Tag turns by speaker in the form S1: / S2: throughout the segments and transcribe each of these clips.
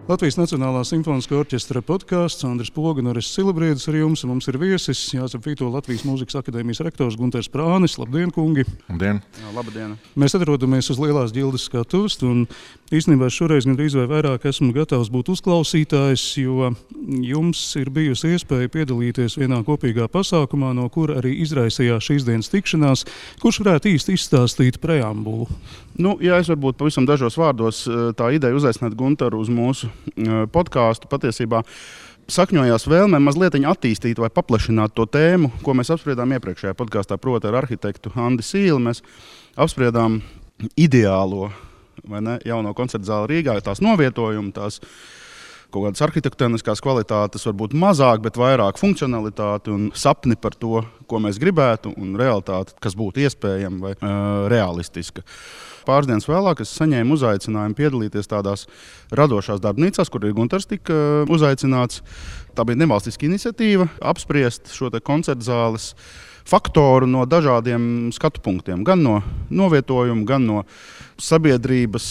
S1: Latvijas Nacionālā simfoniskā orķestra podkāsts, Andris Poga un Aris Silabriedis ar jums. Mums ir viesis Jāzep Vito, Latvijas Mūzikas akadēmijas rektors Gunters Prānis. Labdien, kungi!
S2: Labdien!
S3: Jā, labdien!
S1: Mēs atrodamies uz Lielās ģildes skatuves, un īstenībā šoreiz gandrīz vai vairāk esmu gatavs būt uzklausītājs, jo jums ir bijusi iespēja piedalīties vienā kopīgā pasākumā, no kura arī izraisījās šīs dienas tikšanās. Kurš varētu īsti izstāstīt preambulu?
S3: Ja es varbūt pavisam dažos vārdos tā ideja uzaicināt Gunteru uz mūsu podkāstu patiesībā sakņojās vēlmē mazliet attīstīt vai paplašināt to tēmu, ko mēs apspriedām iepriekšējā podkāstā, proti ar arhitektu Andi Sīli. Mēs apspriedām ideālo jauno koncertu zāli Rīgā, tās novietojumu, tās kaut kādas arhitektoniskās kvalitātes, varbūt mazāk, bet vairāk funkcionalitāti un sapni par to, ko mēs gribētu, un realitāti, kas būtu iespējama vai realistiska. Pāris dienas vēlāk es saņēmu uzaicinājumu piedalīties tādās radošās darbnīcās, kur ir Gunters tika uzaicināts. Tā bija nevalstiska iniciatīva apspriest šo koncertu zāles faktoru no dažādiem skatu punktiem. Gan no novietojuma, gan no sabiedrības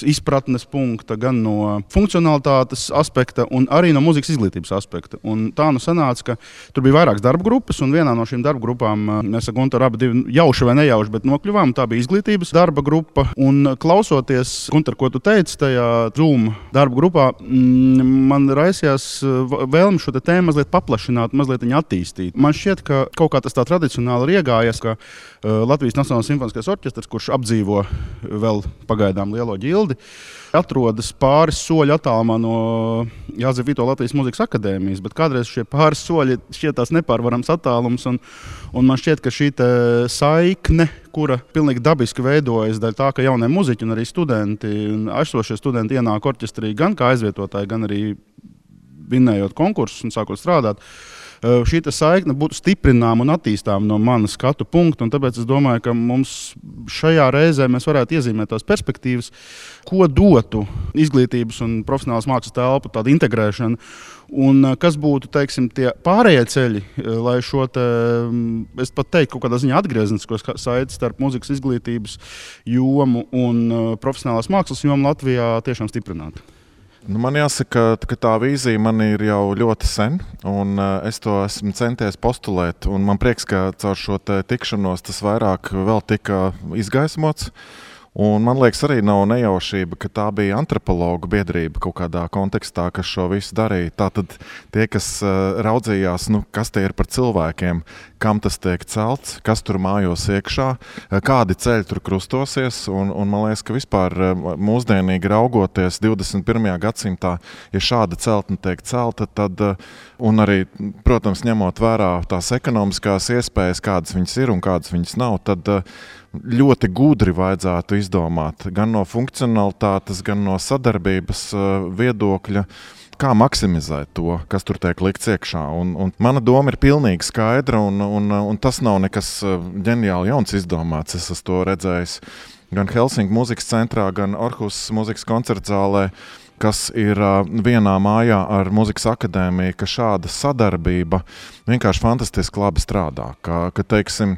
S3: izpratnes punkta, gan no funkcionalitātes aspekta un arī no mūzikas izglītības aspekta. Un tā sanāca, ka tur bija vairākas darba grupas, un vienā no šīm darba grupām mēs ar Gunteru abi jauši vai nejauši, bet nokļuvām. Tā bija izglītības darba grupa. Un klausoties, Gunter, ko tu teici tajā Zoom darba grupā, man raisījās vēlme šo tēmu mazliet paplašināt, mazliet viņu attīstīt. Man šķiet, ka kaut kā tas tā tradicionāli ir iegājies, ka Latvijas Nacionālais simfoniskais orķestrs, kurš apdzīvo vēl pagaidām Lielo ģildi, atrodas pāris soļu attālumā no Jāzep Vito Latvijas Mūzikas akadēmijas, bet kādreiz šie pāris soļi šķietās nepārvarams attālums, un man šķiet, ka šī saikne, kura pilnīgi dabiski veidojas dēļ tā, ka jaunie muziķi un arī studenti un aizsošie studenti ienāk orķestrī gan kā aizvietotāji, gan arī vinnējot konkursus un sākot strādāt. Šī saikne būtu stiprināma un attīstāma no manas skatu punkta, un tāpēc es domāju, ka mums šajā reizē mēs varētu iezīmēt tās perspektīvas, ko dotu izglītības un profesionālas mākslas telpu tāda integrēšana, un kas būtu, teiksim, tie pārējie ceļi, lai šo es pat teiktu, kaut kādā ziņā atgrieznisko saiti starp mūzikas izglītības jomu un profesionālās mākslas jomu Latvijā tiešām stiprinātu.
S2: Man jāsaka, ka tā vīzija man ir jau ļoti sen, un es to esmu centies postulēt. Man prieks, ka caur šo tikšanos tas vairāk vēl tika izgaismots. Un man liekas, arī nav nejaušība, ka tā bija antropologu biedrība kaut kādā kontekstā, kas šo visu darīja. Tātad tie, kas raudzījās, kas tie ir par cilvēkiem, kam tas tiek celts, kas tur mājos iekšā, kādi ceļi tur krustosies. Un man liekas, ka vispār mūsdienīgi raugoties 21. gadsimtā, ja šāda celtne tiek celta, tad, un arī, protams, ņemot vērā tās ekonomiskās iespējas, kādas viņas ir un kādas viņas nav, tad ļoti gudri vajadzētu izdomāt gan no funkcionalitātes, gan no sadarbības viedokļa, kā maksimizēt to, kas tur tiek likts iekšā. Un mana doma ir pilnīgi skaidra, un tas nav nekas ģeniāli jauns izdomāts. Es esmu to redzējis gan Helsinku mūzikas centrā, gan Orhusas mūzikas koncertzālē, kas ir vienā mājā ar mūzikas akadēmiju, ka šāda sadarbība vienkārši fantastiski labi strādā. Ka teiksim,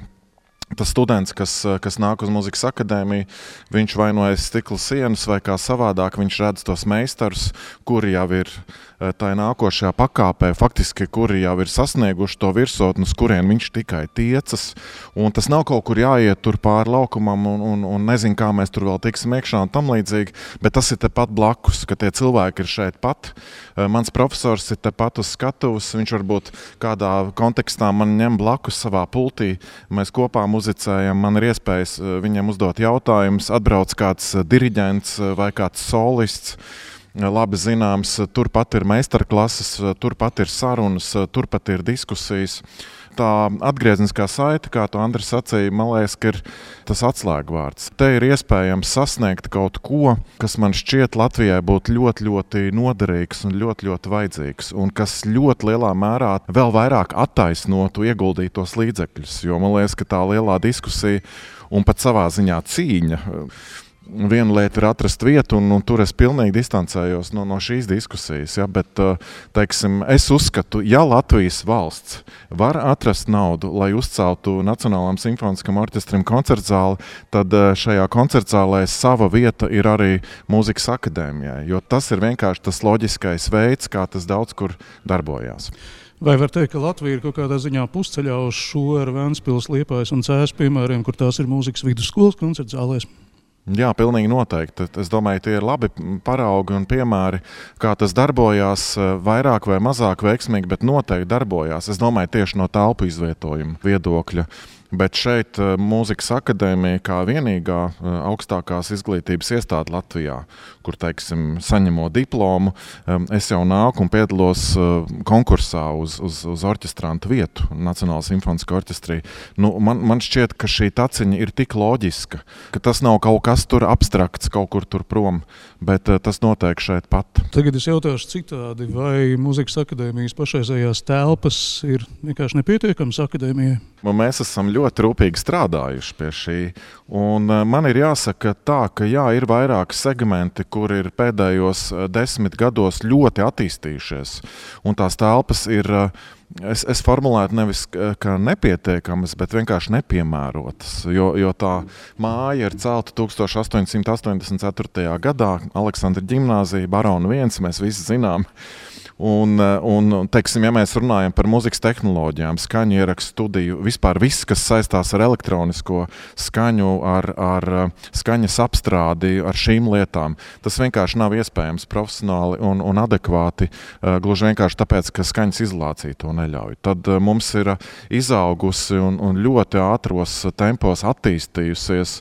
S2: tas students, kas nāk uz mūzikas akadēmiju, viņš vai no aiz stikla sienas vai kā savādāk, viņš redz tos meistarus, kuri jau ir tā nākošajā pakāpē, faktiski, kuri jau ir sasnieguši to virsotni, uz kurien viņš tikai tiecas. Un tas nav kaut kur jāiet tur pāri laukumam un nezinu, kā mēs tur vēl tiksim iekšā un tam līdzīgi, bet tas ir tepat blakus, ka tie cilvēki ir šeit pat. Mans profesors ir tepat uz skatuves, viņš varbūt kādā kontekstā man ņem blakus savā pultī, mēs kopā muzicējam, man ir iespējas viņiem uzdot jautājumus, atbrauc kāds diriģents vai kāds solists, labi zināms, turpat ir meistarklases, turpat ir sarunas, turpat ir diskusijas. Tā atgriezniskā saite, kā tu, Andris, sacīja, man liekas, ka ir tas atslēgvārds. Te ir iespējams sasniegt kaut ko, kas man šķiet Latvijai būtu ļoti, ļoti noderīgs un ļoti, ļoti vajadzīgs, un kas ļoti lielā mērā vēl vairāk attaisnotu ieguldītos līdzekļus, jo man liekas, ka tā lielā diskusija un pat savā ziņā cīņa Viena lieta ir atrast vietu, un tur es pilnīgi distancējos no šīs diskusijas. Ja? Bet, teiksim, es uzskatu, ja Latvijas valsts var atrast naudu, lai uzceltu Nacionālajam simfoniskam orķestrim koncertzāli, tad šajā koncertzālē sava vieta ir arī mūzikas akadēmijai, jo tas ir vienkārši tas loģiskais veids, kā tas daudz kur darbojās.
S1: Vai var teikt, ka Latvija ir kaut kādā ziņā pusceļā uz šo ar Ventspils, Liepājas un Cēsu piemēriem, kur tās ir mūzikas vidusskolas koncertzālēs?
S2: Jā, pilnīgi noteikti. Es domāju, tie ir labi paraugi un piemēri, kā tas darbojās, vairāk vai mazāk veiksmīgi, bet noteikti darbojās. Es domāju, tieši no telpu izvietojuma viedokļa. Bet šeit mūzikas akadēmija kā vienīgā augstākās izglītības iestāde Latvijā, kur, teiksim, saņemot diplomu, es jau nāku un piedalos konkursā uz orķestrantu vietu Nacionālajā simfoniskajā orķestrī. Man šķiet, ka šī taciņa ir tik loģiska, ka tas nav kaut kas tur abstrakts, kaut kur tur prom, bet tas notiek šeit pat.
S1: Tagad es jautāšu citādi, vai mūzikas akadēmijas pašreizējās telpas ir vienkārši nepietiekamas akadēmijai?
S2: Mēs esam ļoti rūpīgi strādājuši pie šī. Un man ir jāsaka tā, ka jā, ir vairāki segmenti, kur ir pēdējos 10 gados ļoti attīstījušies. Un tās telpas ir, es formulētu nevis kā nepietiekamas, bet vienkārši nepiemērotas. Jo tā māja ir celta 1884. gadā, Aleksandra ģimnāzija, Barona 1, mēs visi zinām. Un teiksim, ja mēs runājam par mūzikas tehnoloģijām, skaņu ierakstu studiju, vispār viss, kas saistās ar elektronisko skaņu, ar skaņas apstrādi, ar šīm lietām, tas vienkārši nav iespējams profesionāli un adekvāti, gluži vienkārši tāpēc, ka skaņas izolācija to neļauj. Tad mums ir izaugusi un ļoti ātros tempos attīstījusies,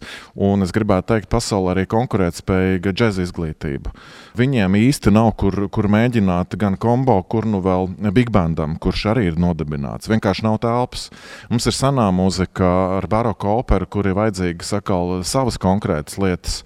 S2: un es gribētu teikt, pasaulē arī konkurētspējīga džeza izglītība. Viņiem īsti nav, kur mēģināt gan kombo, kur nu vēl big bandam, kurš arī ir nodibināts. Vienkārši nav telpas. Mums ir senā mūzika ar baroku operu, kur ir vajadzīgi sakal savas konkrētas lietas.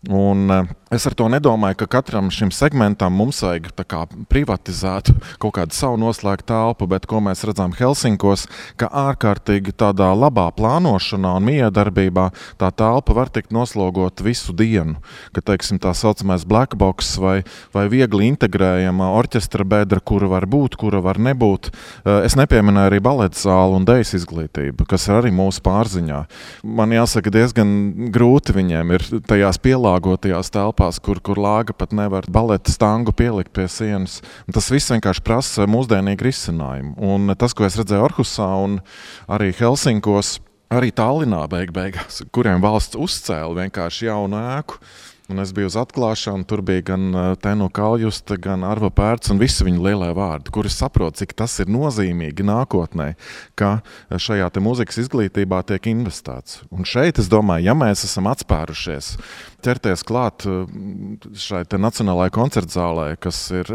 S2: Un es ar to nedomāju, ka katram šim segmentam mums vajag tā kā privatizēt kaut kādu savu noslēgtu telpu, bet ko mēs redzam Helsinkos, ka ārkārtīgi tādā labā plānošanā un miedarbībā tā telpa var tikt noslogot visu dienu. Ka, teiksim, tā saucamais black box vai viegli integrējama orķestra bedra, kura var būt, kura var nebūt. Es nepieminēju arī baleta zāli un dejas izglītību, kas ir arī mūsu pārziņā. Man jāsaka, diezgan grūti viņiem ir tajās pielāgotajās telpās, kur lāga pat nevar baleta stangu pielikt pie sienas. Un tas viss vienkārši prasa mūsdienīgu risinājumu. Un tas, ko es redzēju Orhusā un arī Helsinkos, arī Tallinā beigās, kuriem valsts uzcēla vienkārši jaunu ēku. Un es biju uz atklāšanu, tur bija gan Tenu Kaljusta, gan Arva Pērts un visi viņu lielie vārdi, kuri saprot, cik tas ir nozīmīgi nākotnē, ka šajā te mūzikas izglītībā tiek investēts. Un šeit, es domāju, ja mēs esam atspērušies, ķerties klāt šai te Nacionālajai koncertzālē, kas ir,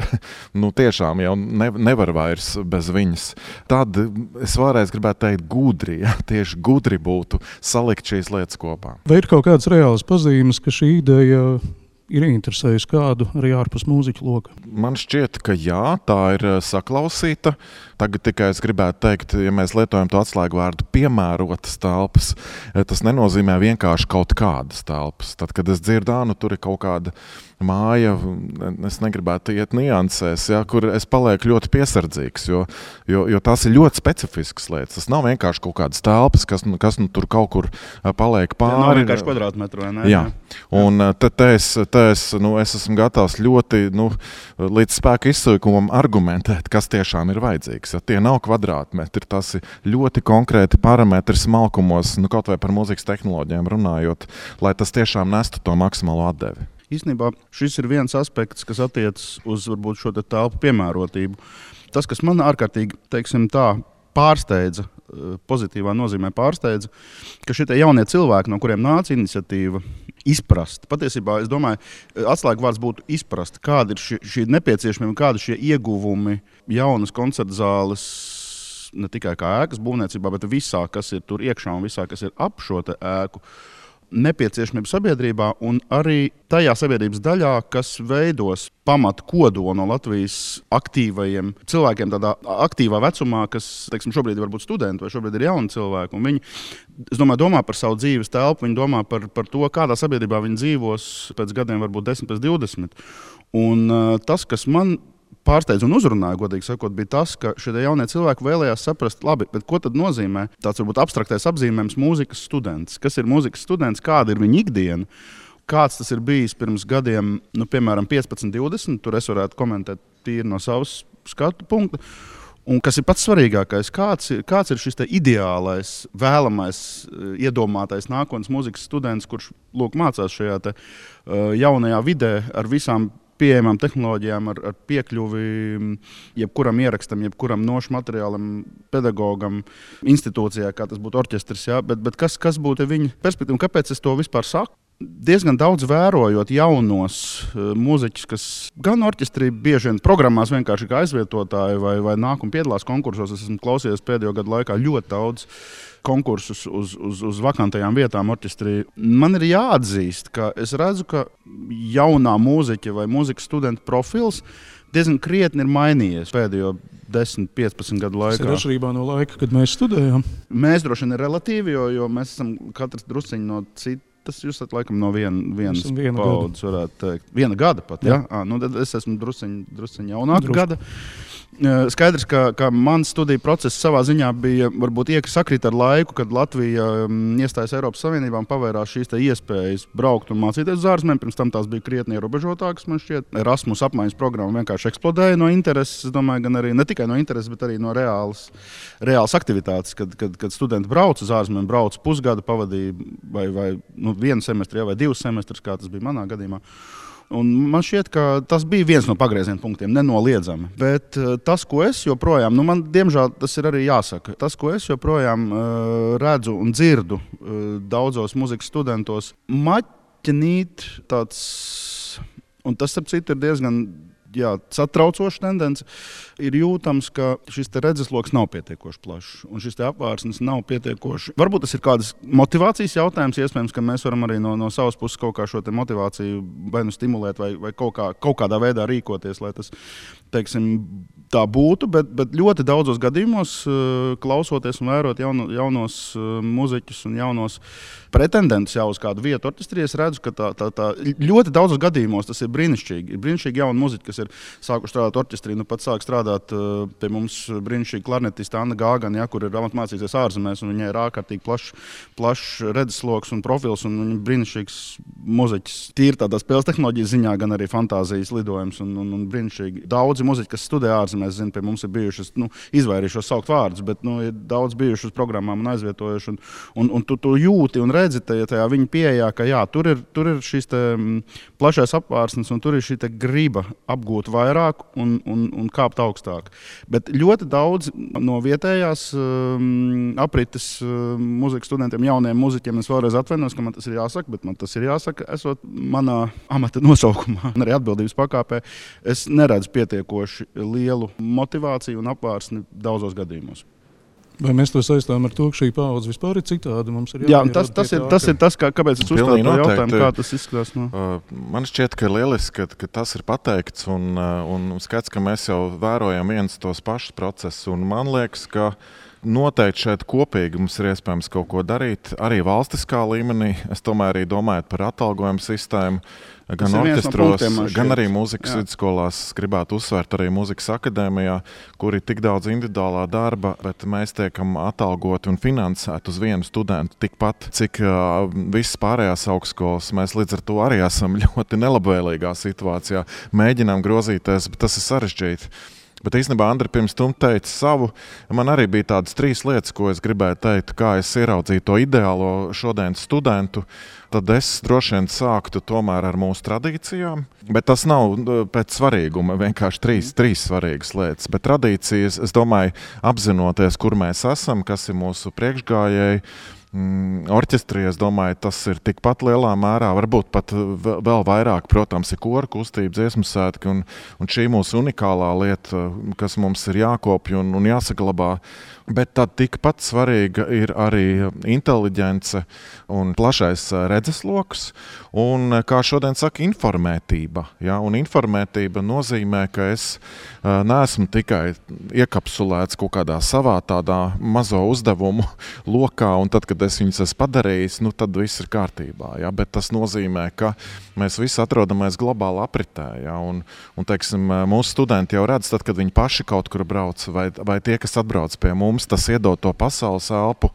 S2: tiešām jau nevar vairs bez viņas, tad es vēlreiz gribētu teikt gudri, ja, tieši gudri būtu salikt šīs lietas kopā.
S1: Vai ir kaut kādas reālas pazīmes, ka šī ideja ir interesējusi kādu arī ārpus mūziķu loka?
S2: Man šķiet, ka jā, tā ir saklausīta. Tagad tikai es gribētu teikt, ja mēs lietojam to atslēgu vārdu piemērotas telpas, tas nenozīmē vienkārši kaut kādas telpas. Tad, kad es dzirdu, tur ir kaut kāda māja, es negribētu iet niansēs, ja, kur es palieku ļoti piesardzīgs, jo tās ir ļoti specifiskas lietas. Tas nav vienkārši kaut kādas telpas, kas tur kaut kur paliek pāri.
S3: Tā nav vienkārši kvadrātmetru, vai ne?
S2: Jā. Un es esmu gatavs ļoti līdz spēka izsaukumam argumentēt, kas tiešām ir vajadzīgs. Ja tie nav kvadrātmetri, tas ir ļoti konkrēti parametri smalkumos, kaut vai par mūzikas tehnoloģijām runājot, lai tas tiešām nestu to maksimālo atdevi.
S3: Īstenībā šis ir viens aspekts, kas attiecas uz varbūt šo telpu piemērotību. Tas, kas man ārkārtīgi, teiksim tā, pārsteidza, pozitīvā nozīmē pārsteidza, ka šie jaunie cilvēki, no kuriem nāca iniciatīva, izprast. Patiesībā, es domāju, atslēgvārds būtu izprast, kāda ir šī nepieciešamība, kāda ir šie ieguvumi jaunas koncertzāles, ne tikai kā ēkas būvniecībā, bet visā, kas ir tur iekšā un visā, kas ir ap šo ēku. nepieciešamību sabiedrībā un arī tajā sabiedrības daļā, kas veidos pamatu kodolu no Latvijas aktīvajiem cilvēkiem, tādā aktīvā vecumā, kas, teiksim, šobrīd ir varbūt studenti vai šobrīd ir jauni cilvēki. Un viņi, es domāju, domā par savu dzīves telpu, viņi domā par to, kādā sabiedrībā viņi dzīvos pēc gadiem, varbūt 10, pēc 20. Un tas, kas man pārsteidz un uzrunāja, godīgi sakot, bija tas, ka šie jaunie cilvēki vēlējās saprast, labi, bet ko tad nozīmē tāds varbūt abstraktais apzīmējums mūzikas students? Kas ir mūzikas students, kāda ir viņa ikdiena? Kāds tas ir bijis pirms gadiem, piemēram, 15, 20, tur es varētu komentēt tīri no savas skatu punkta. Un kas ir pats svarīgākais, kāds ir šis ideālais, vēlamais, iedomātais nākotnes mūzikas students, kurš mācās šajā jaunajā vidē ar visām pieejamām tehnoloģijām, ar piekļuvi jebkuram ierakstam, jebkuram nošu materiālam, pedagogam, institūcijā, kā tas būtu orķestris. Ja? Bet kas būtu viņa perspektīva? Kāpēc es to vispār saku? Diezgan daudz vērojot jaunos mūziķus, kas gan orķestrī bieži vien programmās vienkārši kā aizvietotāji vai nāk un piedalās konkursos. Es esmu klausījies pēdējo gadu laikā ļoti daudz konkursus uz vakantajām vietām orķestrī. Man ir jāatzīst, ka es redzu, ka jaunā mūziķa vai mūzikas studenta profils diezgan krietni ir mainījies pēdējo 10, 15 gadu laikā.
S1: Tas ir atšķirībā no laika, kad mēs studējām.
S3: Mēs droši vien ir relatīvi, jo mēs esam katrs drusciņi no citas. Jūs esat laikam no vienas paudzes, varētu teikt. Viena gada pat, ja? Tad es esmu drusciņi jaunāka gada. Skaidrs, ka mans studiju process savā ziņā bija varbūt sakrīt ar laiku, kad Latvija iestājas Eiropas Savienībā un pavērās šīs iespējas braukt un mācīties uz ārzemēm. Pirms tam tās bija krietni ierobežotākas, man šķiet. Erasmus apmaiņas programma vienkārši eksplodēja no intereses, es domāju, gan arī ne tikai no intereses, bet arī no reālas aktivitātes, kad studenti brauc uz ārzemēm, brauc pusgadu, pavadīja vai vienu semestri vai 2 semestrus, kā tas bija manā gadījumā. Un man šķiet, ka tas bija viens no pagrieziena punktiem, nenoliedzami. Bet tas, ko es joprojām, man diemžēl tas ir arī jāsaka, tas, ko es joprojām redzu un dzirdu daudzos mūzikas studentos, maķinīt tāds, un tas, ap citu, ir diezgan satraucoša tendence, ir jūtams, ka šis redzesloks nav pietiekoši plašs, un šis apvārsnes nav pietiekoši. Varbūt tas ir kādas motivācijas jautājums, iespējams, ka mēs varam arī no savas puses kaut kā šo motivāciju vai stimulēt, vai kaut kādā veidā rīkoties, lai tas, teiksim, tā būtu, bet ļoti daudzos gadījumos, klausoties un vērot jaunos muziķus un jaunos pretendentus jau uz kādu vietu orķestrī, es redzu, ka tā ļoti daudzos gadījumos tas ir brīnišķīgi. Ir brīnišķīgi jauni muziķi, kas ir sākuši strādāt orķestrī, pat sāk strādāt pie mums brīnišķīgi klarnetista Anna Gāgana, kur ir mācīsies ārzemēs, un viņai ir ārkārtīgi plašs redzesloks un profils, un viņa brīnišķīgs muziķis. Tīri tādā spēles tehnoloģijas ziņā, gan arī fantāzijas lidojums, un brīnišķīgi. Daudzi muziķi, kas studē ārzemēs, zinu, pie mums ir bijušas, izvairījušos saukt vārdus, bet ir daudz bijuši uz programmām un aizvietojuši, un tu jūti un redzi tajā viņa pieejā, ka tur ir šis plašais apvārsnes, un tur ir šī griba apgūt vairāk un kāpt augstāk. Bet ļoti daudz no vietējās aprites mūzikas studentiem, jauniem muziķiem, es vēlreiz atvainos, ka man tas ir jāsaka, bet man tas ir jāsaka, esot manā amata nosaukumā un arī atbildības pakāpē, es neredzu pietiekoši lielu motivāciju un apvārsni daudzos gadījumos.
S1: Vai mēs to saistām ar to, ka šī paudze vispār ir citāda?
S3: Tas ir tas, kāpēc es uzstāju to jautājumu, kā tas izskatās.
S2: Man šķiet, ka ir lieliski, ka tas ir pateikts un skats, ka mēs jau vērojam viens tos pašus procesus. Un man liekas, ka noteikti šeit kopīgi mums ir iespējams kaut ko darīt, arī valstiskā līmenī. Es tomēr arī domāju par atalgojumu sistēmu, gan orķestros, gan arī mūzikas vidusskolās. Gribētu uzsvērt arī mūzikas akadēmijā, kur ir tik daudz individuālā darba, bet mēs tiekam atalgoti un finansēti uz vienu studentu tikpat, cik visas pārējās augstskolas. Mēs līdz ar to arī esam ļoti nelabvēlīgā situācijā. Mēģinām grozīties, bet tas ir sarežģīti. Bet īstenībā Andri pirms tam teica savu. Man arī bija tādas 3 lietas, ko es gribēju teikt, kā es ieraudzīju to ideālo šodienas studentu. Tad es droši vien sāktu tomēr ar mūsu tradīcijām. Bet tas nav pēc svarīguma, vienkārši 3 svarīgas lietas. Bet tradīcijas, es domāju, apzinoties, kur mēs esam, kas ir mūsu priekšgājēji, orķestrī, es domāju, tas ir tikpat lielā mērā, varbūt pat vēl vairāk, protams, ir koru kustība, dziesmu svētki, un šī mūsu unikālā lieta, kas mums ir jākopja un jāsaglabā. Bet tad tikpat svarīga ir arī inteliģence un plašais redzesloks, un, kā šodien saka, informētība. Ja? Un informētība nozīmē, ka es neesmu tikai iekapsulēts kaut kādā savā tādā mazo uzdevumu lokā, un tad, kad es viņus esmu padarījis, tad viss ir kārtībā. Ja? Bet tas nozīmē, ka mēs visi atrodamies globāli apritē. Ja? Un teiksim, mūsu studenti jau redz, tad, kad viņi paši kaut kur brauc, vai tie, kas atbrauc pie mums, tas iedod to pasaules elpu,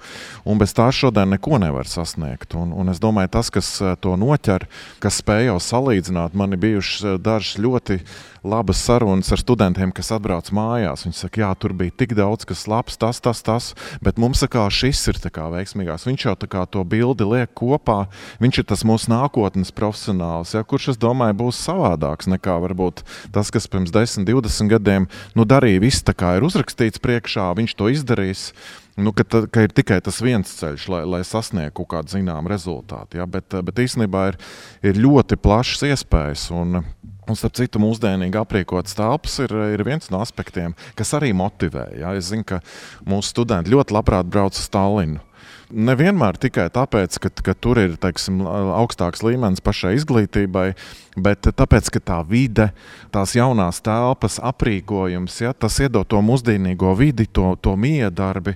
S2: un bez tā šodien neko nevar sasniegt. Un es domāju, tas, kas to noķer, kas spēj jau salīdzināt, man ir bijušas dažas ļoti labas sarunas ar studentiem, kas atbrauc mājās. Viņi saka, jā, tur bija tik daudz, kas labs, tas, bet mums šis ir veiksmīgās. Viņš jau to bildi liek kopā, viņš ir tas mūsu nākotnes profesionāls, ja, kurš, es domāju, būs savādāks nekā varbūt tas, kas pirms 10, 20 gadiem darīja viss tā kā ir uzrakstīts priekšā, viņš to izdarīs. Ka ir tikai tas viens ceļš, lai sasniegtu kaut kādu zināmu rezultātu. Ja? Bet īstenībā ir ļoti plašas iespējas. Un starp citu, mūsdienīgi aprīkotas telpas ir viens no aspektiem, kas arī motivē. Ja? Es zinu, ka mūsu studenti ļoti labprāt brauc uz Tallinu. Nevienmēr tikai tāpēc, ka tur ir, teiksim, augstāks līmenis pašai izglītībai, bet tāpēc, ka tā vide, tās jaunās telpas, aprīkojums, ja, tas iedod to mūsdienīgo vidi, to miedarbi.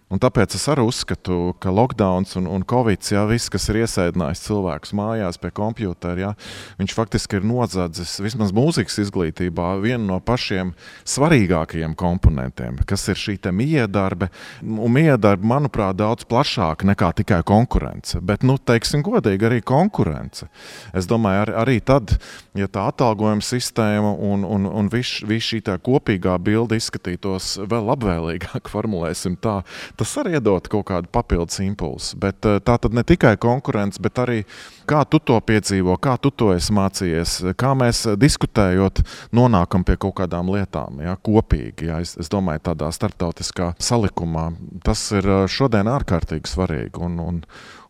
S2: Un tāpēc es arī uzskatu, ka lockdowns un covid, ja, viss, kas ir iesēdinājis cilvēkus mājās pie kompjutera, ja, viņš faktiski ir nozadzis vismaz mūzikas izglītībā vienu no pašiem svarīgākajiem komponentiem, kas ir šī te miedarbe. Un miedarbe, manuprāt, daudz plašāk nekā tikai konkurence. Bet, teiksim godīgi, arī konkurence. Es domāju, arī tad, ja tā atalgojuma sistēma un viss šī tā kopīgā bilde izskatītos vēl labvēlīgāk, formulēsim tā, tas arī iedod kaut kādu papildus impulsu. Bet tā tad ne tikai konkurence, bet arī kā tu to piedzīvo, kā tu to esi mācījies, kā mēs diskutējot nonākam pie kaut kādām lietām, ja, kopīgi. Ja, es domāju, tādā starptautiskā salikumā tas ir šodien ārkārtīgi svarīgi. Un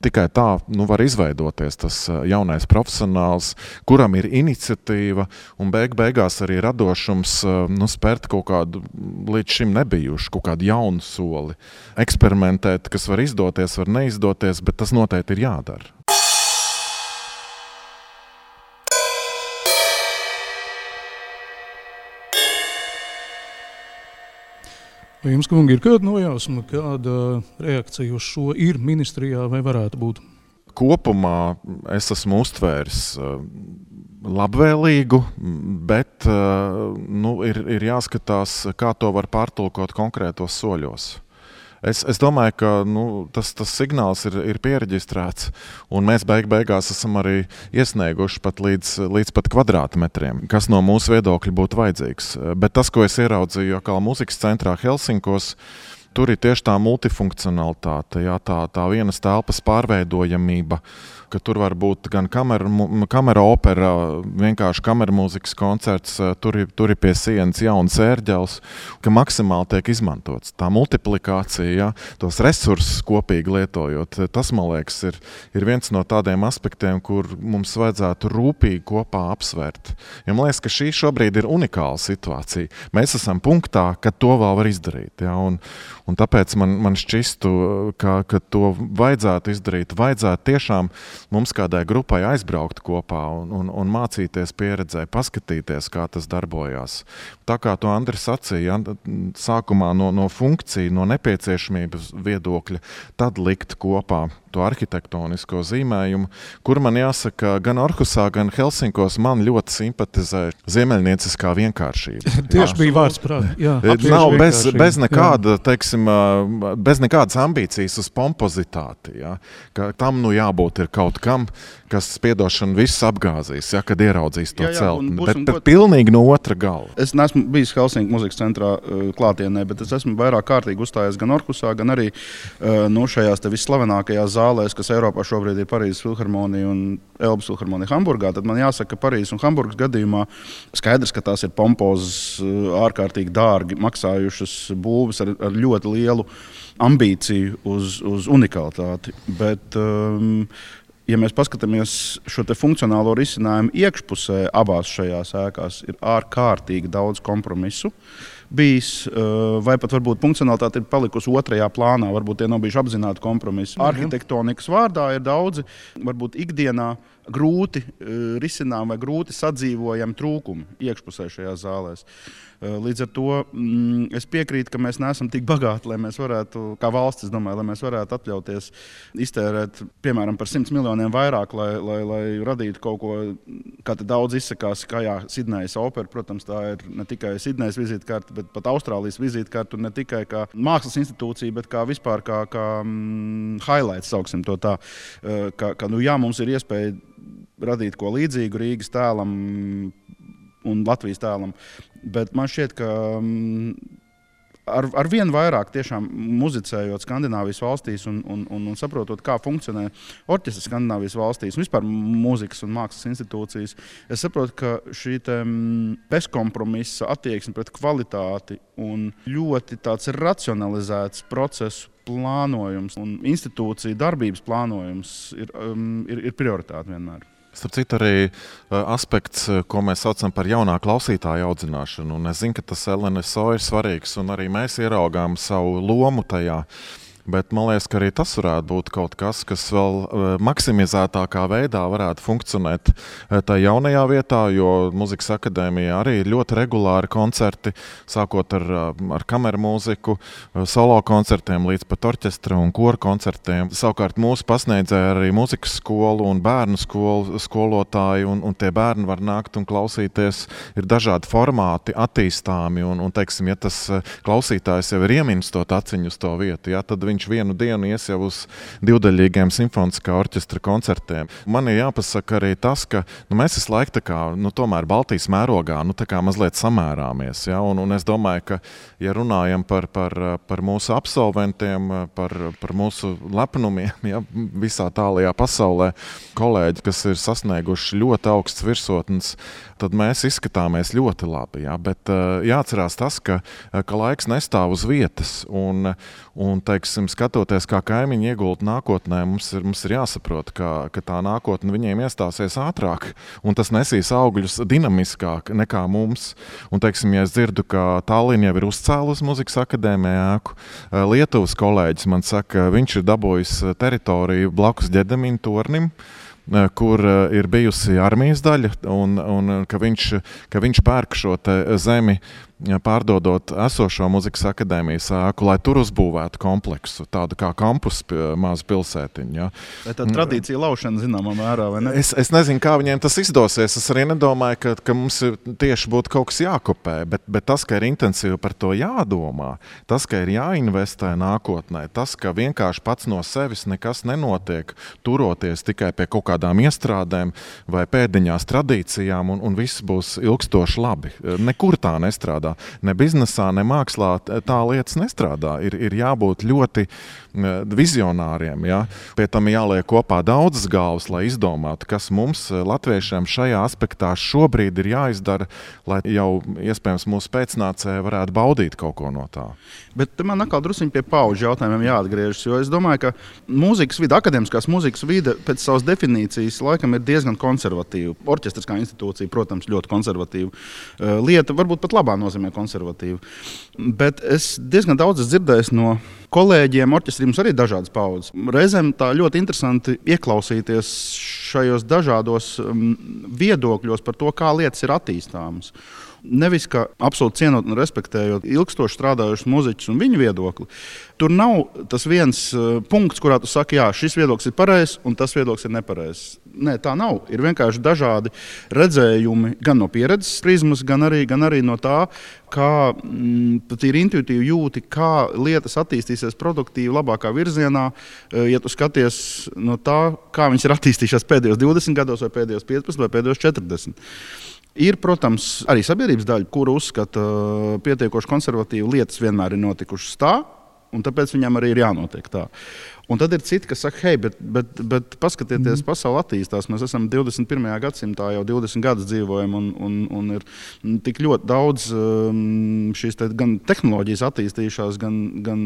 S2: tikai tā var izveidoties tas jaunais profesionāls, kuram ir iniciatīva un beigās arī radošums spērt kaut kādu līdz šim nebijušu, kaut kādu jaunu soli. Eksperimentēt, kas var izdoties, var neizdoties, bet tas noteikti ir jādara.
S1: Vai jums, kungi, ir kāda nojausma, kāda reakcija uz šo ir ministrijā vai varētu būt?
S2: Kopumā es esmu uztvēris labvēlīgu, bet ir jāskatās, kā to var pārtulkot konkrētos soļos. Es domāju, ka tas signāls ir piereģistrēts, un mēs beigās esam arī iesnieguši pat līdz pat kvadrātmetriem, kas no mūsu viedokļa būtu vajadzīgs. Bet tas, ko es ieraudzīju kā mūzikas centrā Helsinkos, tur ir tieši tā multifunkcionalitāte, jā, tā vienas telpas pārveidojamība, ka tur var būt gan kamera opera, vienkārši kameramūzikas koncerts, tur ir pie sienas jauns ērģels, ka maksimāli tiek izmantots. Tā multiplikācija, ja, tos resursus kopīgi lietojot, tas, man liekas, ir viens no tādiem aspektiem, kur mums vajadzētu rūpīgi kopā apsvērt. Ja man liekas, ka šī šobrīd ir unikāla situācija. Mēs esam punktā, ka to vēl var izdarīt. Ja, un tāpēc man šķistu, ka to vajadzētu izdarīt, vajadzētu tiešām mums kādai grupai aizbraukt kopā un mācīties pieredzē, paskatīties, kā tas darbojās. Tā kā to Andris sacīja, sākumā no funkciju, no nepieciešamības viedokļa, tad likt kopā to arhitektonisko zīmējumu, kur man jāsaka, gan Orhusā, gan Helsinkos man ļoti simpatizē ziemeļnieciskā vienkāršība.
S1: Tieši bija vārds prāt.
S2: Nav bez nekāda, teiksim, bez nekādas ambīcijas uz pompozitāti. Ja? Ka tam jābūt ir kaut kam, kas piedošana viss apgāzīs, ja, kad ieraudzīs to celtni. Bet pilnīgi no otra gala.
S3: Es neesmu bijis Helsinki muzikas centrā klātienē, bet es esmu vairāk kārtīgi uzstājies gan Orhusā, gan arī šajās te visslavenākajās zālēs, kas Eiropā šobrīd ir Parīzes filharmonija un Elbas filharmonija Hamburgā. Tad man jāsaka, ka Parīzes un Hamburgas gadījumā skaidrs, ka tās ir pompozas, ārkārtīgi dārgi maksājušas būves ar ļoti lielu ambīciju uz unikalitāti. Bet, ja mēs paskatāmies šo te funkcionālo risinājumu iekšpusē abās šajās ēkās, ir ārkārtīgi daudz kompromisu bijis, vai pat varbūt funkcionalitāte ir palikusi otrajā plānā, varbūt tie nav bijuši apzināti kompromisi. Arhitektonikas vārdā ir daudzi, varbūt ikdienā grūti risinām vai grūti sadzīvojami trūkumi iekšpusē šajās zālēs. Līdz ar to es piekrītu, ka mēs neesam tik bagāti, lai mēs varētu, kā valsts, es domāju, lai mēs varētu atļauties iztērēt, piemēram, par 100 miljoniem vairāk, lai radītu kaut ko, kā te daudz izsakās, kā Sidnejas opera, protams, tā ir ne tikai Sidnejas vizītkarte, bet pat Austrālijas vizītkarte, un ne tikai kā mākslas institūcija, bet kā vispār kā highlights, sauksim to tā, mums ir iespēja radīt ko līdzīgu Rīgas tēlam un Latvijas tēlam. Bet man šķiet, ka ar vien vairāk tiešām muzicējot Skandināvijas valstīs un saprotot, kā funkcionē orķestris Skandināvijas valstīs un vispār mūzikas un mākslas institūcijas, es saprotu, ka šī bezkompromisa attieksme pret kvalitāti un ļoti tāds racionalizēts procesu plānojums un institūciju darbības plānojums ir prioritāte vienmēr.
S2: Starp citu, arī aspekts, ko mēs saucam par jaunā klausītāja audzināšanu. Un es zinu, ka tas LNSO ir svarīgs, un arī mēs ieraugām savu lomu tajā. Bet man liekas, ka arī tas varētu būt kaut kas, kas vēl maksimizētākā veidā varētu funkcionēt tajā jaunajā vietā, jo Muzikas akadēmijā arī ir ļoti regulāri koncerti, sākot ar kameru mūziku, solo koncertiem līdz pat orķestra un koru koncertiem. Savukārt mūsu pasniedzēja arī muzikas skolu un bērnu skolu skolotāji, un tie bērni var nākt un klausīties. Ir dažādi formāti attīstāmi, un teiksim, ja tas klausītājs jau ir ieminstot aciņu uz to vietu, ja, tad viņš vienu dienu ies jau uz divdaļīgiem simfoniskā orķestra koncertiem. Man ir jāpasaka arī tas, ka mēs visu laiku tā kā, tomēr Baltijas mērogā tā kā mazliet samērāmies. Ja? Un es domāju, ka, ja runājam par mūsu absolventiem, par mūsu lepnumiem, ja, visā tālajā pasaulē, kolēģi, kas ir sasnieguši ļoti augsts virsotnes, tad mēs izskatāmies ļoti labi. Ja? Bet jāatcerās tas, ka laiks nestāv uz vietas un teiksim, skatoties, kā kaimiņi iegulda nākotnē, mums ir jāsaprot, ka tā nākotne viņiem iestāsies ātrāk, un tas nesīs augļus dinamiskāk nekā mums. Un, teiksim, ja es dzirdu, ka Tallinna jau ir uzcēlusi Muzikas akadēmijā ēku, Lietuvas kolēģis man saka, viņš ir dabūjis teritoriju blakus Ģedemina tornim, kur ir bijusi armijas daļa, un ka viņš pērk šo zemi, pārdodot esošo Muzikas akadēmijas ēku, lai tur uzbūvētu kompleksu, tādu kā kampus mazu pilsētiņu. Ja.
S3: Vai tā tradīcija laušana zināmā mērā, vai ne?
S2: Es nezinu, kā viņiem tas izdosies. Es arī nedomāju, ka mums tieši būtu kaut kas jākopē, bet tas, ka ir intensīvi par to jādomā, tas, ka ir jāinvestē nākotnē, tas, ka vienkārši pats no sevis nekas nenotiek, turoties tikai pie kaut kādām iestrādēm vai pēdiņās tradīcijām, un viss būs ilgstoši labi. Nekur tā nestrādā. Ne biznesā, ne mākslā tā lietas nestrādā. Ir jābūt ļoti vizionāriem. Ja? Pie tam jāliek kopā daudzas galvas, lai izdomātu, kas mums, latviešiem, šajā aspektā šobrīd ir jāizdara, lai jau iespējams mūsu pēcnācēji varētu baudīt kaut ko no tā.
S3: Bet man atkal druskuļi pie paudžu jautājumiem jāatgriežas, jo es domāju, ka mūzikas vide, akadēmiskās mūzikas vide pēc savas definīcijas laikam ir diezgan konservatīva. Orķestris kā institūcija, protams, ļoti konservatīva lieta, varbūt pat labā nozīmē konservatīva. Bet es diezgan daudz dzirdēju no kolēģiem, orķestrī mums arī dažādas paudzes. Reizēm tā ļoti interesanti ieklausīties šajos dažādos viedokļos par to, kā lietas ir attīstāmas. Nevis kā absolūti cienot un respektējot ilgstoši strādājušus muzeķus un viņu viedokli. Tur nav tas viens punkts, kurā tu saki, jā, šis viedoklis ir pareizs un tas viedoklis ir nepareizs. Nē, tā nav. Ir vienkārši dažādi redzējumi gan no pieredzes prizmas, gan arī no tā, kā pat ir intuitīvi jūti, kā lietas attīstīsies attīstīsies produktīvi, labākā virzienā, ja tu skaties no tā, kā viņas ir attīstījušās pēdējos 20 gados, vai pēdējos 15, vai pēdējos 40. Ir, protams, arī sabiedrības daļa, kuru uzskata pietiekoši konservatīvi lietas vienmēr ir notikušas tā, un tāpēc viņam arī ir jānotiek tā. Un tad ir citi, kas saka, hei, bet paskatieties, pasaule attīstās. Mēs esam 21. gadsimtā, jau 20 gadus dzīvojam, un ir tik ļoti daudz šīs gan tehnoloģijas attīstījušās, gan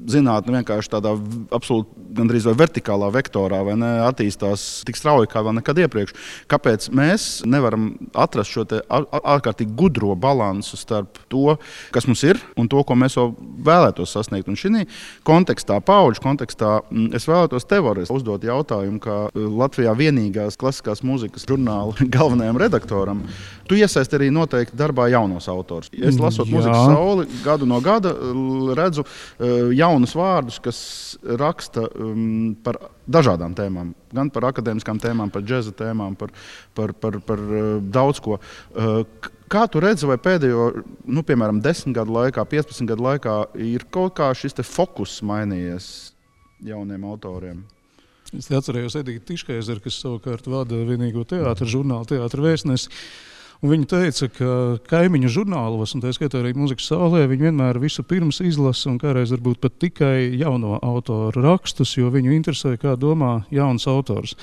S3: zinātne vienkārši tādā absolūti gandrīz vai vertikālā vektorā, vai ne, attīstās tik strauji kā vēl nekad iepriekš. Kāpēc mēs nevaram atrast šo te ārkārtīgi gudro balansu starp to, kas mums ir, un to, ko mēs vēl vēlētos sasniegt? Un šī kontekstā, paudžu kontekstā, es vēlētos tev uzdot jautājumu, kā Latvijā vienīgās klasiskās mūzikas žurnāla galvenajam redaktoram. Tu iesaisti arī noteikti darbā jaunos autors. Es lasot Mūzikas sauli, gadu no gada redzu jaunus vārdus, kas raksta par dažādām tēmām. Gan par akadēmiskām tēmām, par džeza tēmām, par daudz ko. Kā tu redzi, vai pēdējo, piemēram, 10 gadu laikā, 15 gadu laikā ir kaut kā šis te fokus mainījies jauniem autoriem?
S1: Es atcerējos Edīti Tiškaizeru, kas savukārt vada vienīgo teātra žurnālu Teātra vēstnesi. Un viņa teica, ka kaimiņu žurnālos, un tā skaitā arī Mūzikas saulē, viņi vienmēr visu pirms izlasa un kādreiz varbūt pat tikai jauno autoru rakstus, jo viņu interesē, kā domā jauns autors.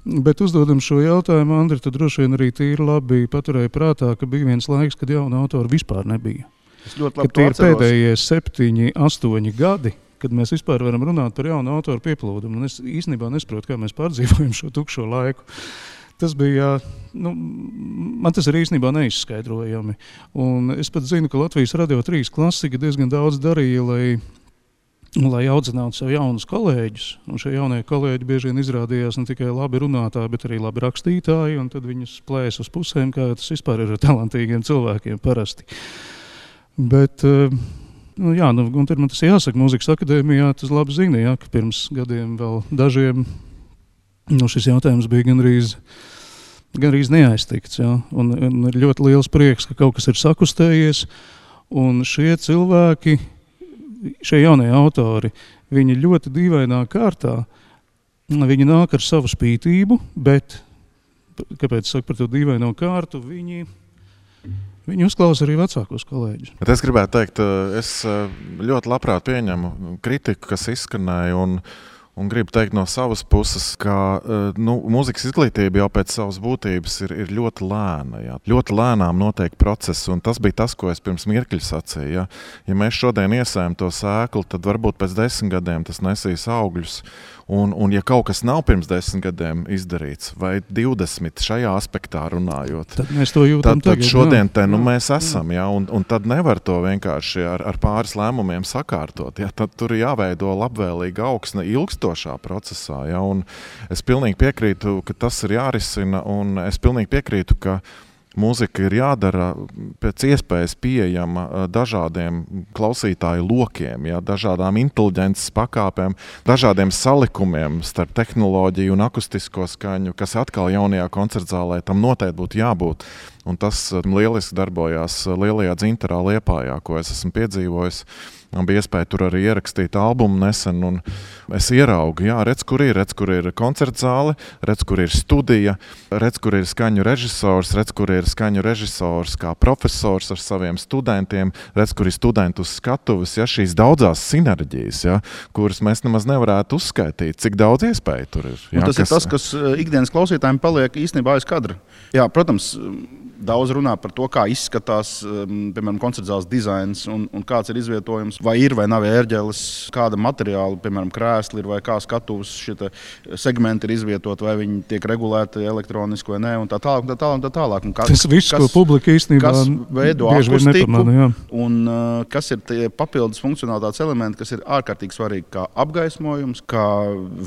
S1: Bet uzdodam šo jautājumu, Andri, tad droši vien arī tīri labi paturēja prātā, ka bija viens laiks, kad jauna autora vispār nebija.
S3: Es ļoti labi
S1: to atceros. Pēdējie 7, 8 gadi, kad mēs vispār varam runāt par jaunu autoru pieplūdumu. Un es īstenībā nesaprotu, kā mēs pārdzīvojam šo tukšo laiku. Tas bija, man tas ir īstenībā neizskaidrojami. Un es pat zinu, ka Latvijas Radio 3 klasika diezgan daudz darīja, lai audzinātu sev jaunus kolēģus. Un šie jaunie kolēģi bieži vien izrādījās ne tikai labi runātāji, bet arī labi rakstītāji, un tad viņus plēs uz pusēm, kā tas vispār ir ar talantīgiem cilvēkiem parasti. Bet, un tad man tas jāsaka, Mūzikas akadēmijā tas labi zina, ka pirms gadiem vēl dažiem šis jautājums bija gandrīz neaiztikts. Un ir ļoti liels prieks, ka kaut kas ir sakustējies, un šie cilvēki, šie jaunie autori, viņi ļoti dīvainā kārtā, viņi nāk ar savu spītību, bet, kāpēc saku par to dīvaino kārtu, viņi uzklausa arī vecākos kolēģus.
S2: Bet es gribētu teikt, es ļoti labprāt pieņemu kritiku, kas izskanēja, un gribu teikt no savas puses, ka mūzikas izglītība jau pēc savas būtības ir ļoti lēna. Jā. Ļoti lēnām notiek process, un tas bija tas, ko es pirms mirkļa sacīju. Jā. Ja mēs šodien iesējam to sēklu, tad varbūt pēc 10 gadiem tas nesīs augļus. Un ja kaut kas nav pirms 10 gadiem izdarīts, vai 20 šajā aspektā runājot,
S1: tad mēs to jūtam
S2: tad šodien mēs esam, jā, un tad nevar to vienkārši ar pāris lēmumiem sakārtot. Jā, tad tur ir jāveido labvēlīga augsne ilgstošā procesā. Jā, un es pilnīgi piekrītu, ka tas ir jārisina, un es pilnīgi piekrītu, ka mūzika ir jādara pēc iespējas pieejama dažādiem klausītāju lokiem, jā, dažādām inteliģences pakāpēm, dažādiem salikumiem starp tehnoloģiju un akustisko skaņu, kas atkal jaunajā koncertzālē tam noteikti būtu jābūt. Un tas lieliski darbojās Lielajā Dzintarā Liepājā, ko es esmu piedzīvojis. Man bija iespēja tur arī ierakstīt albumu nesen, un es ieraugu, redz, kur ir koncertzāle, redz, kur ir studija, redz, kur ir skaņu režisors, redz, kur ir skaņu režisors kā profesors ar saviem studentiem, redz, kur ir studenti uz skatuves, šīs daudzās sinerģijas, kuras mēs nemaz nevarētu uzskaitīt, cik daudz iespēju tur ir.
S3: Un tas ir tas, kas ikdienas klausītājiem paliek īstenībā aiz kadra. Jā, protams, daudz runā par to, kā izskatās, piemēram, koncertzāles dizains un kāds ir izvietojums, vai ir vai nav ērģeles, kāda materiāla, piemēram, krēsli ir vai kā skatuves šie segmenti ir izvietot, vai viņi tiek regulēti elektroniski vai nē, un tā tālāk.
S1: Tas viss, ko publika īstenībā
S3: veido akustiku, un kas ir tie papildus funkcionalitātes elementi, kas ir ārkārtīgi svarīgi, kā apgaismojums, kā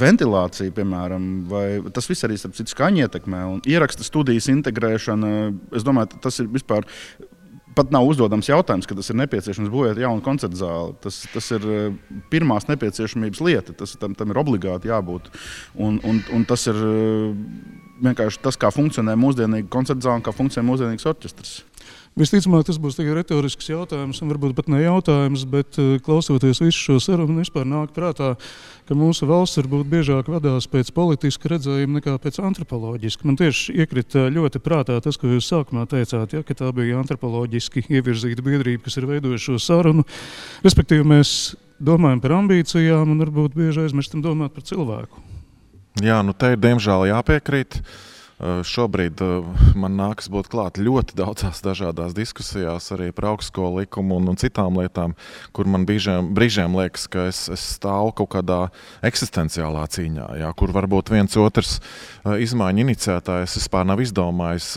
S3: ventilācija, piemēram, vai tas viss arī starp citu skaņu ietekmē, un ieraksta studijas integrēšana. Es domāju, tas ir vispār pat nav uzdodams jautājums, ka tas ir nepieciešams būvēt jaunu koncertzāli. Tas ir pirmās nepieciešamības lieta, tam ir obligāti jābūt. Un tas ir vienkārši tas, kā funkcionē mūsdienīga koncertzāle un kā funkcionē mūsdienīgs orķestrs.
S1: Visticamāk, tas būs tikai retorisks jautājums, un varbūt pat ne jautājums, bet klausoties visu šo sarunu, vispār nāk prātā, ka mūsu valsts varbūt biežāk vadās pēc politiska redzējuma nekā pēc antropoloģiska. Man tieši iekrita ļoti prātā tas, ko jūs sākumā teicāt, ja, ka tā bija antropoloģiski ievirzīta biedrība, kas ir veidojuši šo sarunu. Respektīvi, mēs domājam par ambīcijām un varbūt bieži aizmirstam domāt par cilvēku.
S2: Jā, nu te ir diemžēl jāpiekrīt. Šobrīd man nākas būt klāt ļoti daudzās dažādās diskusijās arī par augstskolu likumu un citām lietām, kur man brīžiem liekas, ka es stāvu kaut kādā eksistenciālā cīņā, jā, kur varbūt viens otrs izmaiņu iniciētājs vispār nav izdomājis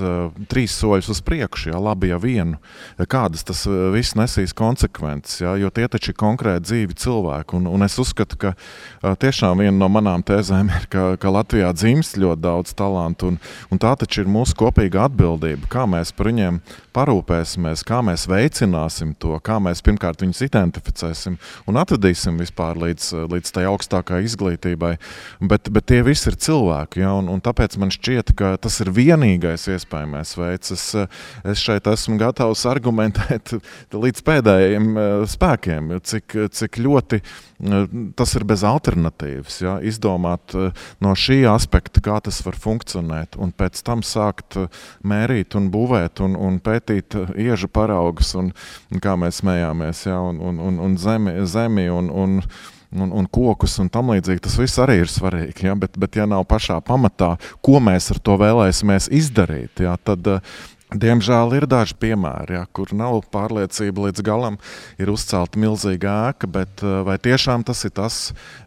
S2: 3 soļus uz priekšu, jā, labi ja vienu. Kādas tas viss nesīs konsekvences, jā, jo tie taču ir konkrēti dzīvi cilvēki. Un es uzskatu, ka tiešām viena no manām tēzēm ir, ka Latvijā dzimst ļoti daudz talantu un tā taču ir mūsu kopīga atbildība, kā mēs par viņiem parūpēsimies, kā mēs veicināsim to, kā mēs pirmkārt viņus identificēsim un atvedīsim vispār līdz tai augstākai izglītībai. Bet tie visi ir cilvēki, ja, un tāpēc man šķiet, ka tas ir vienīgais iespējamais veids. Es šeit esmu gatavs argumentēt līdz pēdējiem spēkiem, cik ļoti tas ir bez alternatīvas, ja, izdomāt no šī aspekta, kā tas var funkcionēt, un pēc tam sākt mērīt un būvēt un pētīt iežu paraugus, un kā mēs smējāmies, ja, un zemi un kokus un tam līdzīgi. Tas viss arī ir svarīgi, ja, bet ja nav pašā pamatā, ko mēs ar to vēlēsimies izdarīt, ja, tad diemžēl ir daži piemēri, ja, kur nav pārliecība līdz galam, ir uzcelta milzīga ēka, bet vai tiešām tas ir tas,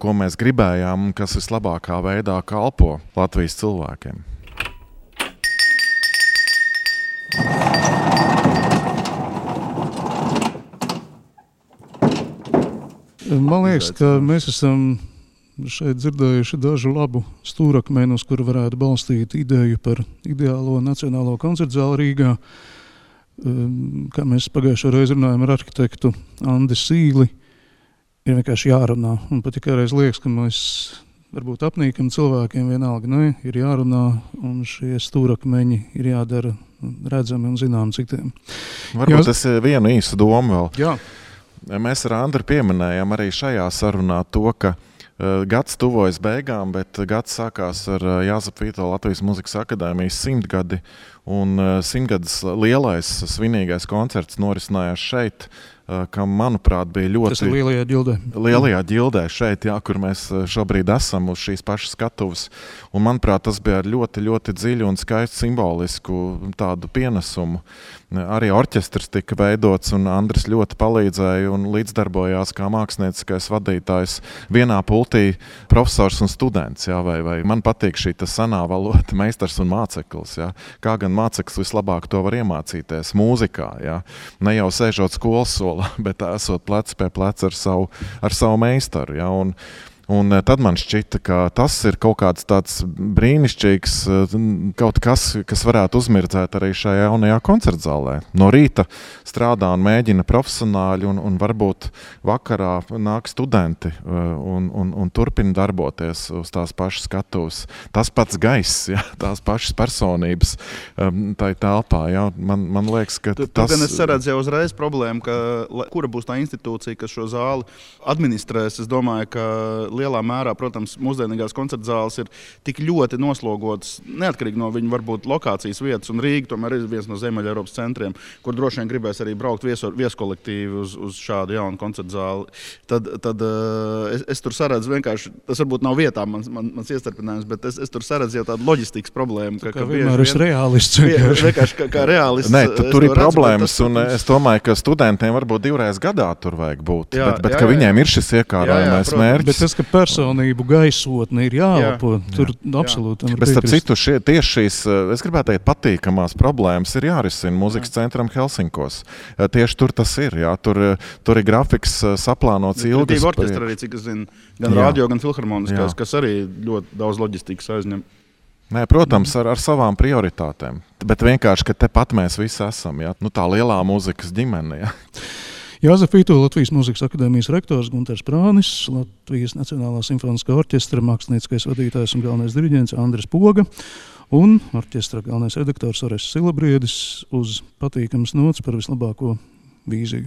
S2: ko mēs gribējām un kas vislabākā veidā kalpo Latvijas cilvēkiem?
S1: Man liekas, ka mēs esam šeit dzirdējuši dažu labu stūrakmeni, uz kuru varētu balstīt ideju par ideālo nacionālo koncertzāli Rīgā. Kā mēs pagājušo reizi runājam ar arhitektu Andi Sīli, ir vienkārši jārunā. Un pat tikai liekas, ka mēs varbūt apnīkam cilvēkiem vienalga, ne, ir jārunā, un šie stūrakmeņi ir jādara redzami un zinām citiem.
S2: Varbūt es vienu īsu domu vēl.
S1: Jā.
S2: Mēs ar Andru pieminējām arī šajā sarunā to, ka gads tuvojas beigām, bet gads sākās ar Jāzepa Vītola Latvijas Mūzikas akadēmijas 100 gadi, un 100 gadus lielais svinīgais koncerts norisinājās šeit, kam, manuprāt, bija ļoti...
S1: Tas ir Lielajā ģildē.
S2: Lielajā ģildē šeit, jā, kur mēs šobrīd esam uz šīs pašas skatuves. Un, manuprāt, tas bija ar ļoti, ļoti dziļu un skaistu simbolisku tādu pienesumu. Arī orķestrs tika veidots, un Andris ļoti palīdzēja un līdzdarbojās kā mākslinieckais vadītājs vienā pultī profesors un students. Jā, vai man patīk šī senā valoda, meistars un māceklis. Jā. Kā gan māceklis vislabāk to var iemācīties mūzikā. Jā. Ne jau sēžot skolas solā, bet esot plec pie pleca ar savu meistaru. Jā. Un tad man šķita, ka tas ir kaut kāds tāds brīnišķīgs, kaut kas varētu uzmirdzēt arī šajā jaunajā koncertzālē. No rīta strādā un mēģina profesionāļi, un varbūt vakarā nāk studenti un turpina darboties uz tās pašas skatuves. Tas pats gaiss, ja, tās pašas personības tai telpā. Ja. Man liekas, ka tas...
S3: Gan es saredzu jau uzreiz problēmu, kura būs tā institūcija, kas šo zāli administrēs. Es domāju, ka lielā mērā, protams, mūsdienīgās koncertzāles ir tik ļoti noslogotas, neatkarīgi no viņu varbūt lokācijas vietas, un Rīga tomēr ir viens no Ziemeļa Eiropas centriem, kur droši vien gribēs arī braukt vieskolektīvi uz šādu jaunu koncertzāli. Tad es tur saredzu vienkārši, tas varbūt nav vietā mans iestarpinājums, bet es tur saredzu jau tādu loģistikas problēmu.
S1: Kā vienmēr esi reālists.
S3: Vienkārši kā reālists.
S2: Nē, tur ir problēmas, un es domāju, ka studentiem varbūt 2 reizes gadā tur vajag būt, bet ka viņiem ir šis iekārojamais mērķis.
S1: Bet tas, ka personību gaisotne ir jāelpo, tur absolūti.
S2: Bet starp citu, tieši šīs, es gribētu teikt, patīkamās problēmas ir jārisina Mūzikas centram Helsinkos. Tieši tur tas ir, jā, tur ir grafiks saplānots ilgas.
S3: Orķestra arī, cik es zinu, gan radio, gan filharmoniskās, kas arī ļoti daudz loģistikas aizņem.
S2: Nē, protams, ar savām prioritātēm, bet vienkārši, ka tepat mēs visi esam, jā, tā lielā mūzikas ģimene, jā.
S1: Jāzepa Vītola Latvijas Mūzikas akadēmijas rektors Gunters Prānis, Latvijas Nacionālā simfoniskā orķestra mākslinieckais vadītājs un galvenais diriģents Andris Poga Un orķestra galvenais redaktors Orests Silabriedis uz patīkamas nots par vislabāko vīziju.